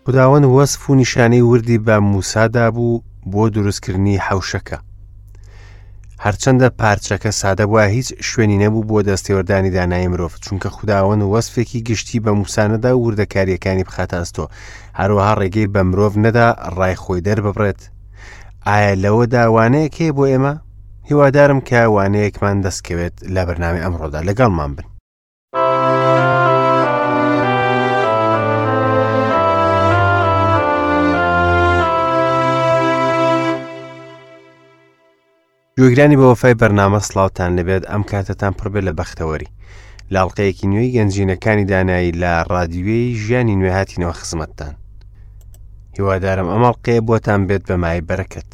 خوداوەند وەسف و نیشانەی وردی بە موسا دابوو بۆ دروستکردنی حەوشەکە. هەرچەندە پارچەکە سادە بووە هیچ شوێنی نەبوو بۆ دەستێوەردانی دانایی مرۆڤ چونکە خوداوەند وەسفێکی گشتی بە موسا نەدا و وردەکاریەکانی بخاتە ئەستۆ هەروەها ڕێگەی بە مرۆڤ نەدا ڕای خۆی دەرببڕێت ئایا لەوەدا وانەیەک هەیە بۆ ئێمە هیوادارم کە وانەیەکمان دەستکەوێت لە بەرنامەی ئەمڕۆدا لەگەڵمان بن گوێگرانی بە وەفای بەرنامە سڵاوتان لەبێت ئەم کاتەتان پڕبێت لە بەختەوەری لاڵقەیەکی نوێی گەنجینەکانی دانایی لە ڕادیوێی ژیانی نوێ هاتینەوە خزمەتتان هیوادارم ئەم ئەڵقەیە بۆتان بێت بە مای بەرەکەت.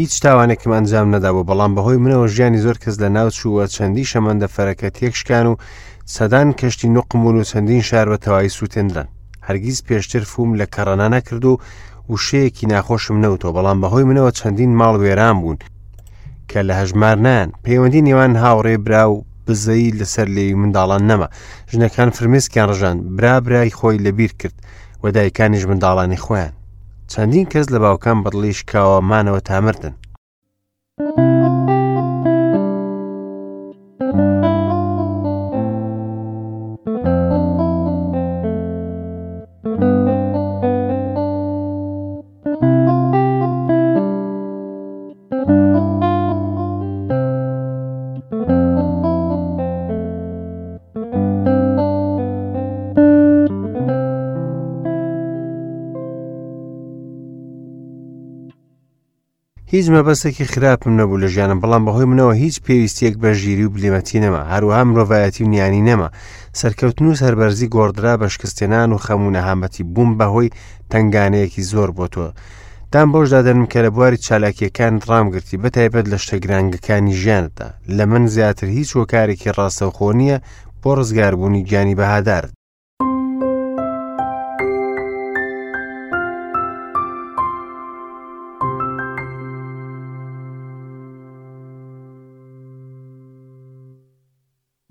هیچ تاوانێکم ئەنجام نەدابوو بەڵام بەهۆی منەوە ژیانی زۆر کەس لە ناو چووە چەندی شەمەندەفەرەکە تێکشکان و سەدان کەشتی نوقم بوون و چەندین شار بە تەواوی سووتێنران هەرگیز پێشتر فوم لە کەڕەنا نەکرد و وشەیەکی ناخۆشم نەوتەوە بەڵام بەهۆی منەوە چەندین ماڵ وێران بوون کە لە هەژمار نایەن پەیوەندی نێوان هاوڕێ برا و بزەی لەسەر لێوی منداڵان نەما ژنەکان فرمێسکیان ڕژان برا برای خۆی لەبیر کرد و دایکانیش منداڵانی خۆیان چەندین کەس لە باوکان بەدڵی شکاوە مانەوە تا مردن. هیچ مەبەستێکی خراپم نەبوو لە ژیانم بەڵام بەهۆی منەوە هیچ پێویستیەک بە ژیری و بلیمەتی نەما هەروەها مرۆڤایەتی و نیانی نەما سەرکەوتن و سەربەرزی گۆڕدرا بە شکستێنان و خەم و نەهامەتی بووم بەهۆی تنگانەیەکی زۆر بۆ تۆ دان بەوشدا دەنم کە لە بواری چالاکیەکان ڕامگرتی بە تایبەت لە شتە گرانگەکانی ژیانتدا لە من زیاتر هیچ هۆکارێکی ڕاستەوخۆ نییە بۆ ڕزگاربوونی گیانی بەهادارت.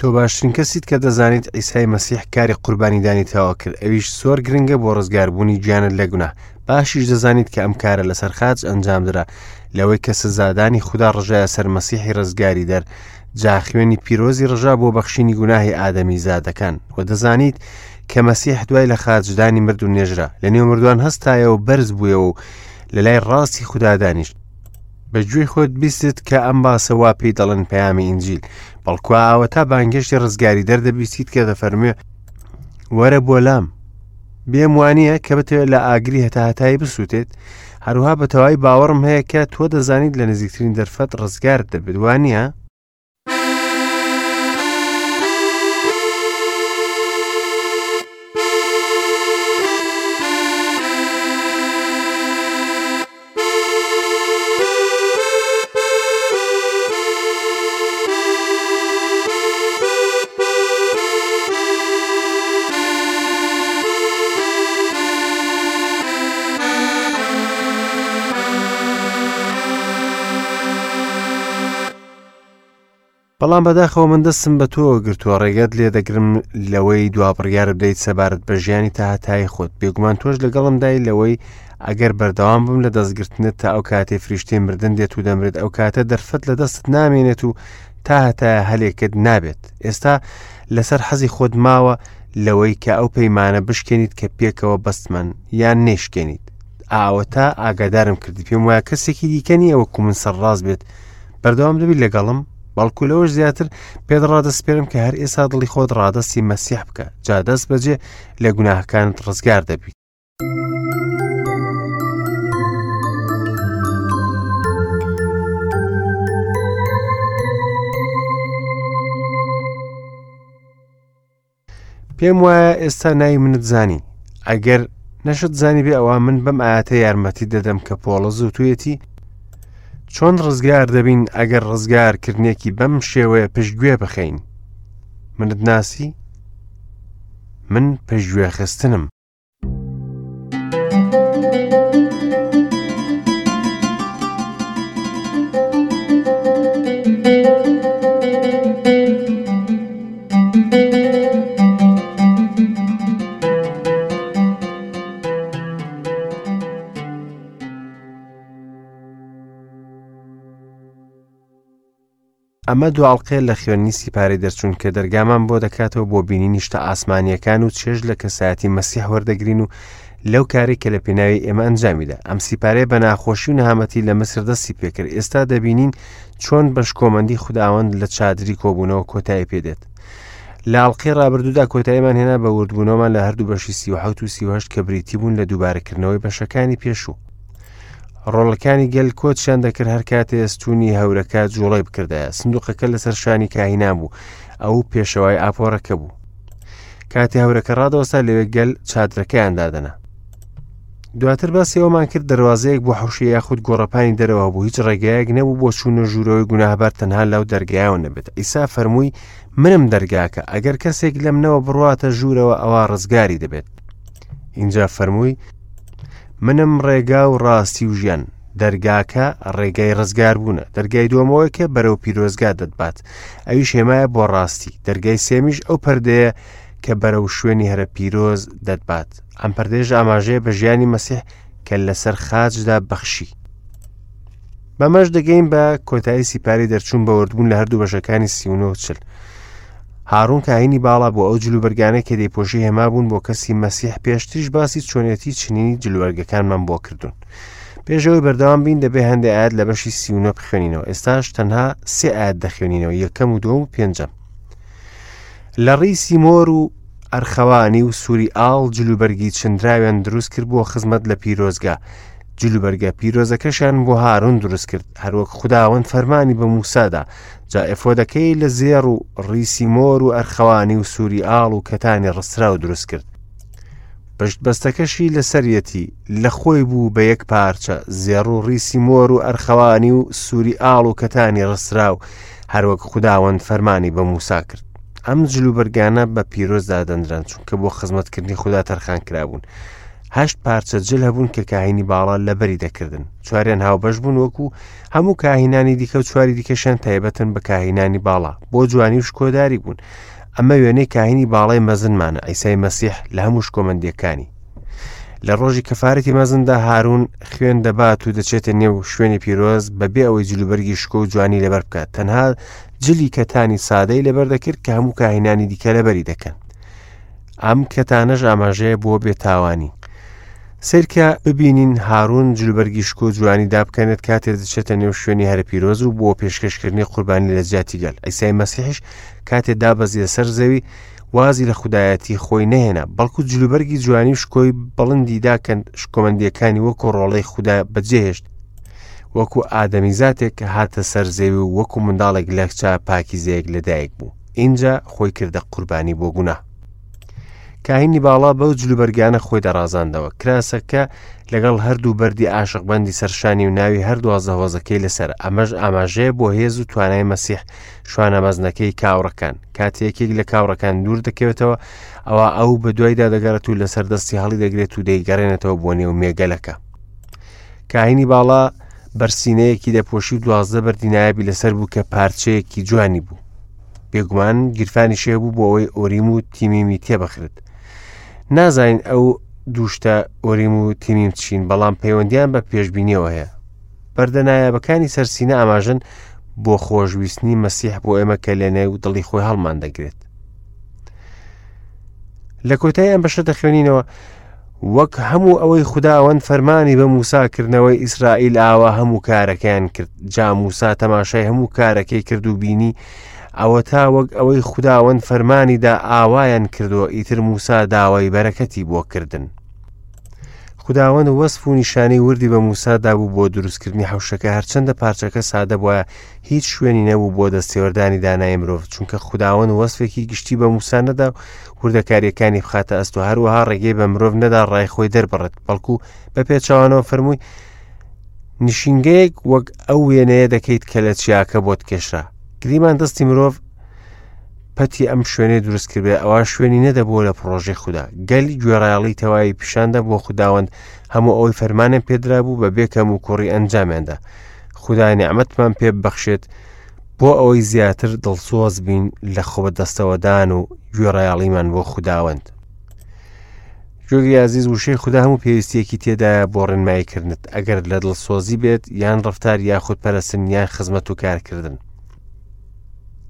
تۆ باشترین کەسیت کە دەزانیت عیسای مەسیح کاری قوربانیدانی تەواو کرد ئەویش زۆر گرنگە بۆ ڕزگاربوونی گیانت لە گوناه باشیش دەزانیت کە ئەم کارە لەسەر خاچ ئەنجامدرا لەوەی کە سزادانی خودا ڕژایە سەر مەسیحی ڕزگاری دەر جا خوێنی پیرۆزی ڕژا بۆ بەخشینی گوناهی ئادەمی زادەکان و دەزانیت کە مەسیح دوای لە خاچدانی مرد و نێژرا لە نێو مردوان هەستایەوە بەرز بوویەوە و لە لای ڕاستی خودا دانیشت بە گوێی خۆت بیستت کە ئەم باسە وا پێی دەڵێن پەیامی ئینجیل بەڵکو ئاوەتا بانگێشتی ڕزگاری دەردەبیستیت کە دەفەرموێ وەرە بۆ لام بێم وانە کە بتەوێت لە ئاگری هەتاهتایی بسووتێت هەروها بە تەواوی باوەڕم هەیە کە تۆ دەزانیت لە نزیکترین دەرفەت ڕزگارت دەبێت وانە؟ بەڵام بەداخەوە من دەستم بە تۆوە گرتووە ڕێگەت لێ دەگرم لەوەی دوا بڕیار بدەیت سەبارەت بە ژیانی تاهتایی خۆت بێگومان تۆش لەگەڵمدای لەوەی ئەگەر بەردەوام بم لە دەستگرتنت تا ئەو کاتەی فریشتەی مردن دێت و دەمرێت ئەو کاتە دەرفەت لە دەستت نامێنێت و تا هەتایە هەلێکت نابێت ئێستا لەسەر حەزی خۆت ماوە لەوەی کە ئەو پەیمانە بشکێنیت کە پێکەوە بەستمان یان نەیشکێنیت ئاوەتا ئاگادارم کردی پێم وایە کەسێکی دیکە نییە وەکو من سەرڕاست بێت بەردەوام دەبی لەگەڵم بەڵکو لەوەش زیاتر پێت ڕادەسپێرم کە هەر ئێستا دڵی خۆت ڕادەستی مەسیح بکە جا دەست بەجێ لە گوناهەکانت ڕزگار دەبیت پێم وایە ئێستا ناوی منت زانی ئەگەر نەشت زانی بێ ئەوە من بەم ئاەتە یارمەتی دەدەم کە پۆڵە زووتویەتی چۆن ڕزگار دەبین ئەگەر ڕزگارکردنێکی بەم شێوەیە پشتگوێ بخەین منت ناسی من پشتگوێخستنم. ئەمە دو ئەڵقەیە لە خوێندنی سیپارەی دەرچوون کە دەرگامان بۆ دەکاتەوە بۆ بینینی شتە ئاسمانییەکان و چێژ لە کەسایەتی مەسیح وەردەگرین و لەو کارەی کە لە پێناوی ئێمە ئەنجامیدا. ئەم سیپارەیە بە ناخۆشی و نەهامەتی لە میسر دەستی پێکرد. ئێستا دەبینین چۆن بە شکۆمەندی خوداوەند لە چادری کۆبوونەوە کۆتایی پێدێت. لە ئەڵقەی ڕابردوودا کۆتاییمان هێنا بە وردبوونەوەمان لە هەردوو بەشی 37 و 38 کە بریتی بوون لە دووبارەکردنەوەی بەشەکانی پێشوو. ڕۆڵەکانی گەل کۆچیان دەکرد هەر کاتێ ستونی هەورەکە جوڵەی بکردایە سندوقەکە لەسەر شانی کاهینان بوو ئەو پێشەوای ئاپۆرەکە بوو کاتێ هەورەکە ڕادەوەستا لەوێ گەل چادرەکەیان دادەنا دواتر باسی ئەومان کرد دەواازەیەک بۆ حوشی یاخود گۆڕەپانی دەرەوە بوو هیچ ڕێگایەک نەبوو بۆ چوونە ژوورەوەی گوناهبار تەنها لەو دەرگایەوە نەبێت ئیسا فەرمووی منم دەرگاکە ئەگەر کەسێک لەم نەوە بڕواتە ژوورەوە ئەوە ڕزگاری دەبێت اینجا فەرمووی منم ڕێگا و ڕاستی و ژیان. دەرگاکە ڕێگای ڕزگاربوونە. دەرگای دووەمەوەی کە بەرەو پیرۆزگا دەتبات. ئەویش هێمایە بۆ ڕاستی. دەرگای سێمیش ئەو پەردەیە کە بەرەو شوێنی هەرە پیرۆز دەتبات. ئەم پەردەیەش ئاماژەیە بە ژیانی مەسیح کە لەسەر خاچدا بەخشی. بەمەش دەگەین بە کۆتایی سیپاری دەرچوون بە وردبوون لە هەردوو بەشەکانی 39 و 40. هاڕون کاهینی باڵا بۆ ئەو جلوبەرگانەی کە دەیپۆشی هێما بوون بۆ کەسی مەسیح پێشتریش باسی چۆنێتی چنینی جلوبەرگەکانمان بۆ کردوون پێشەوەی بەردەوام بین دەبێ هەندێک ئاەت لە بەشی 39 بخوێنینەوە ئێستاش تەنها سێ ئاەت دەخوێنینەوە یەکەم و دووەم و پێنجەم لە ڕیسی مۆر و ئەرخەوانی و سووری ئاڵ جلوبەرگی چنراویان دروست کرد بۆ خزمەت لە پیرۆزگا جلوبەرگە پیرۆزەکەشیان بۆ هارون دروست کرد هەروەک خوداوەند فەرمانی بە موسادا جا ئێفۆدەکەی لە زێڕ و ڕیسی مۆر و ئەرخەوانی و سووری ئاڵ و کەتانی ڕستراو دروست کرد پشت بەستەکەشی لەسەریەتی لە خۆی بوو بە یەک پارچە زێڕ و ڕیسی مۆر و ئەرخەوانی و سووری ئاڵ و کەتانی ڕستراو هەروەک خوداوەند فەرمانی بە موسا کرد ئەم جلوبەرگانە بە پیرۆز دادەنران چونکە بۆ خزمەتکردنی خودا تەرخان کرابوون هەشت پارچە جل هەبوون کە کاهینی باڵا لەبەری دەکردن چواریان هاوبەش بوون وەکو هەموو کاهینانی دیکە و چواری دیکەشیان تایبەتن بە کاهینانی باڵا بۆ جوانی و شکۆداری بوون ئەمە وێنەی کاهینی باڵای مەزنمانە ئەیسای مەسیح لە هەموو شکۆمەندیەکانی لە ڕۆژی کەفارەتی مەزندا هارون خوێن دەبات و دەچێتە نێو شوێنی پیرۆز بەبێ ئەوەی جلوبەرگی شکۆ و جوانی لەبەر بکات تەنها جلی کەتانی سادەی لەبەر دەکرد کە هەموو کاهینانی دیکە لەبەری دەکەن ئەم کەتانەش ئاماژەیە بۆ بێتاوانی. سەیرکە ببینین هارون جلوبەرگی شکۆ جوانی دابکەنێت کاتێ دەچێتە نێو شوێنی هەرە پیرۆز و بۆ پێشکەشکردنی قوربانی لە جیاتی گەل ئەیسای مەسیحیش کاتێ دابەزیە سەر زەوی وازی لە خودایەتی خۆی نەهێنا بەڵکو جلوبەرگی جوانی و شکۆی بڵندی داکەند شکۆمەندیەکانی وەکو ڕۆڵەی خودا بەجێهێشت وەکو ئادەمیزاتێک هاتە سەر زەوی و وەکو منداڵێک لە کچە پاکیزەیەک لەدایک بوو ئینجا خۆی کردە قوربانی بۆ گوناه کاهینی باڵا بەو جلوبەرگانە خۆی دەڕازاندەوە کراسەکە لەگەڵ هەردوو بەردی عاشقبەندی سەرشانی و ناوی هەر دوازدە هۆزەکەی لەسەر ئەمەش ئاماژەیە بۆ هێز و توانای مەسیح شوانە مەزنەکەی کاوڕەکان کاتێ یەکێک لە کاوڕەکان دوور دەکەوێتەوە ئەوە ئەو بە دوایدا دەگەڕێت و لەسەر دەستی هەڵی دەگرێت و دەیگەڕێنێتەوە بۆ نێو مێگەلەکە کاهینی باڵا بەرسینەیەکی دەپۆشی و دوازدە بەردی نایابی لەسەر بوو کە پارچەیەکی جوانی بوو بێگومان گیرفانی شێ بوو بۆ ئەوەی ئۆریم و تیمیمی تێبخرێت نازانین ئەو دووشتە ئۆریم و تیمیم چین بەڵام پەیوەندیان بە پێشبینیەوە هەیە بەردە نایابەکانی سەرسینە ئاماژن بۆ خۆشویستنی مەسیح بۆ ئێمە کە لەنێو دڵی خۆی هەڵمان دەگرێت لە کۆتای ئەم بەشە دەخوێنینەوە وەک هەموو ئەوەی خوداوەند فەرمانی بە موسا کردنەوەی ئیسرائیل ئاوا هەموو کارەکەیان کرد جا موسا تەماشای هەموو کارەکەی کرد و بینی ئەوە تا وەک ئەوەی خوداوەند فەرمانی دا ئاوایان کردووە ئیتر موسا داوای بەرەکەتی بۆ کردن. خوداوەند وەسف و نیشانەی وردی بە موسا دابوو بۆ دروستکردنی حەوشەکە هەرچەندە پارچەکە سادە بوایە هیچ شوێنی نەبوو بۆ دەستێوەردانی دانای مرۆڤ چونکە خوداوەند وەسفێکی گشتی بە موسا نەدا و وردەکاریەکانی بخاتە ئەستۆ هەروەها ڕێگەی بە مرۆڤ نەدا ڕای خۆی دەربڕێت بەڵکو بە پێچەوانەوە فەرمووی نشینگەیەک وەک ئەو وێنەیە دەکەیت کە لە چیاکە بۆت کێشرا گریمان دەستی مرۆڤ پەتی ئەم شوێنەی دروست کردێ ئەوە شوێنی نەدەبووە لە پڕۆژەی خودا گەل گوێڕایەڵی تەواوی پیشاندا بۆ خوداوەند هەموو ئەوەی فەرمانیان پێدرابوو بە بێ کەم و کوڕی ئەنجامیاندا خودا نیعمەتمان پێ ببەخشێت بۆ ئەوەی زیاتر دڵسۆز بین لە خۆ بەدەستەوەدان و گوێڕایەڵیمان بۆ خوداوەند گوێگری ئازیز وشەی خودا هەموو پێویستیەکی تێدایە بۆ ڕێنماییکردنت ئەگەر لە دڵسۆزی بێت یان ڕفتار یاخود پەرستن یان خزمەت و کارکردن.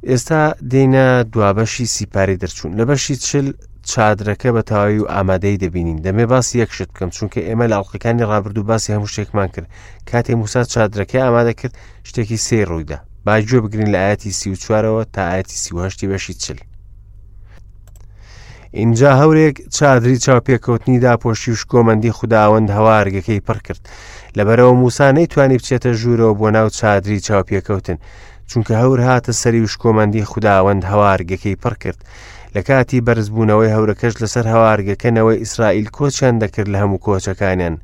ئێستا دێینە دوابەشی سیپاری دەرچوون لە بەشی چل چادرەکە بە تەواوی و ئامادەی دەبینین دەمێ باسی یەک شت بکەم چونکە ئێمە لە ئەڵلقەکانی ڕابردوو باسی هەموو شتێکمان کرد کاتێ موسا چادرەکەی ئامادە کرد شتێکی سێ ڕوویدا با گوێ بگرین لە ئاەتی 34ەوە تا ئاەتی 38 بەشی چل ئینجا هەورێک چادری چاوپێکەوتنی داپۆشی و شکۆمەندی خوداوەند هەوارگەکەی پڕ کرد لەبەرەوە موسا نەیتوانی بچێتە ژوورەوە بۆ ناو چادری چاوپێکەوتن چونکە هەور هاتە سەری و شکۆمەندی خوداوەند هەوارگەکەی پڕ کرد لە کاتی بەرزبوونەوەی هەورەکەش لەسەر هەوارگەکە نەوەی ئیسرائیل کۆچیان دەکرد لە هەموو کۆچەکانیان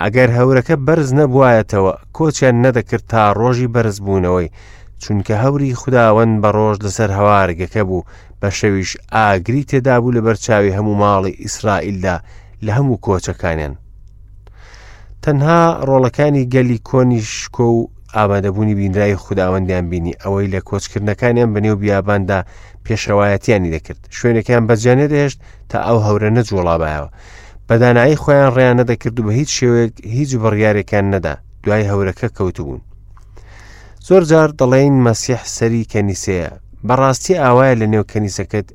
ئەگەر هەورەکە بەرز نەبوایەتەوە کۆچیان نەدەکرد تا ڕۆژی بەرزبوونەوەی چونکە هەوری خوداوەند بە ڕۆژ لەسەر هەوارگەکە بوو بە شەویش ئاگری تێدابوو لەبەر چاوی هەموو ماڵی ئیسرائیلدا لە هەموو کۆچەکانیان تەنها ڕۆڵەکانی گەلی کۆنی شکۆ و ئامادەبوونی بینراوی خوداوەندیان بینی ئەوەی لە کۆچکردنەکانیان بەنێو بیاباندا پێشەوایەتیانی دەکرد شوێنێکیان بەجیا نەدەهێشت تا ئەو هەورە نەجوڵابایەوە بەدانایی خۆیان ڕێیان نەدەکرد و بە هیچ شێوەیەک هیچ بڕیارێکیان نەدا دوای هەورەکە کەوتبوون زۆر جار دەڵێین مەسیح سەری کەنیسەیە بەڕاستی ئاوایە لە نێو کەنیسەکەت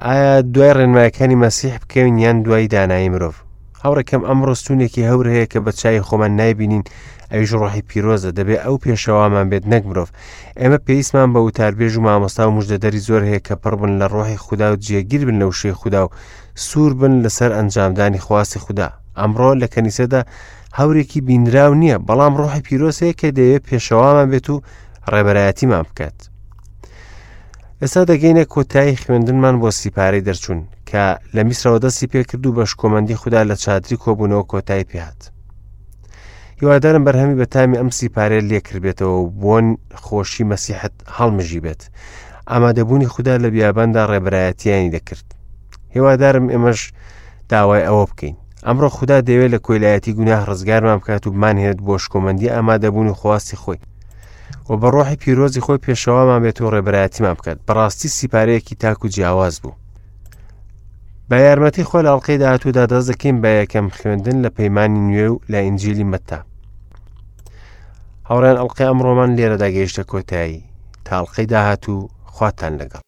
ئایا دوای ڕێنمایەکانی مەسیح بکەوین یان دوای دانایی مرۆڤ هاوڕێکەم ئەمڕۆ ستونێکی هەور هەیە کە بە چای خۆمان نایبینین ئەویش ڕۆحی پیرۆزە دەبێ ئەو پێشەوامان بێت نەک مرۆڤ ئێمە پێویستمان بە وتاربێژ و مامۆستا و مژدەدەری زۆر هەیە کە پڕ بن لە ڕۆحی خودا و جێگیر بن لە وشەی خودا و سوور بن لەسەر ئەنجامدانی خواستی خودا ئەمڕۆ لە کەنیسەدا هەورێکی بینراو نییە بەڵام ڕۆحی پیرۆز هەیە کە دەیەوێت پێشەوامان بێت و ڕێبەرایەتیمان بکات ئێستا دەگەینە کۆتایی خوێندنمان بۆ سیپارەی دەرچوون کە لە میسرەوە دەستی پێکرد و بە شکۆمەندی خودا لە چادری کۆبوونەوە کۆتایی پێهات هیوادارم بەرهەمی بەتامی ئەم سیپارەیە لێکردبێتەوە و بۆن خۆشی مەسیحت هەڵمژی بێت ئامادەبوونی خودا لە بیاباندا ڕێبەرایەتیانی دەکرد هیوادارم ئێمەش داوای ئەوە بکەین ئەمڕۆ خودا دەیەوێت لە کۆیلایەتی گوناه ڕزگارمان بکات و بمانهێنێت بۆ شکۆمەندی ئامادەبوون و خواستی خۆی و بە ڕۆحی پیرۆزی خۆی پێشەوامان بێت و ڕێبەرایەتیمان بکات بەڕاستی سیپارەیەکی تاک و جیاواز بوو بە یارمەتی خۆ لە ئەڵلقەی داهاتوودا دەست دەکەین بە یەکەم خوێندن لە پەیمانی نوێ و لە ئینجیلی مەتا هاوڕێن ئەڵلقەی ئەمڕۆمان لێرەدا گەیشتە کۆتایی تا ئەڵلقەی داهاتوو خواتان لەگەڵ.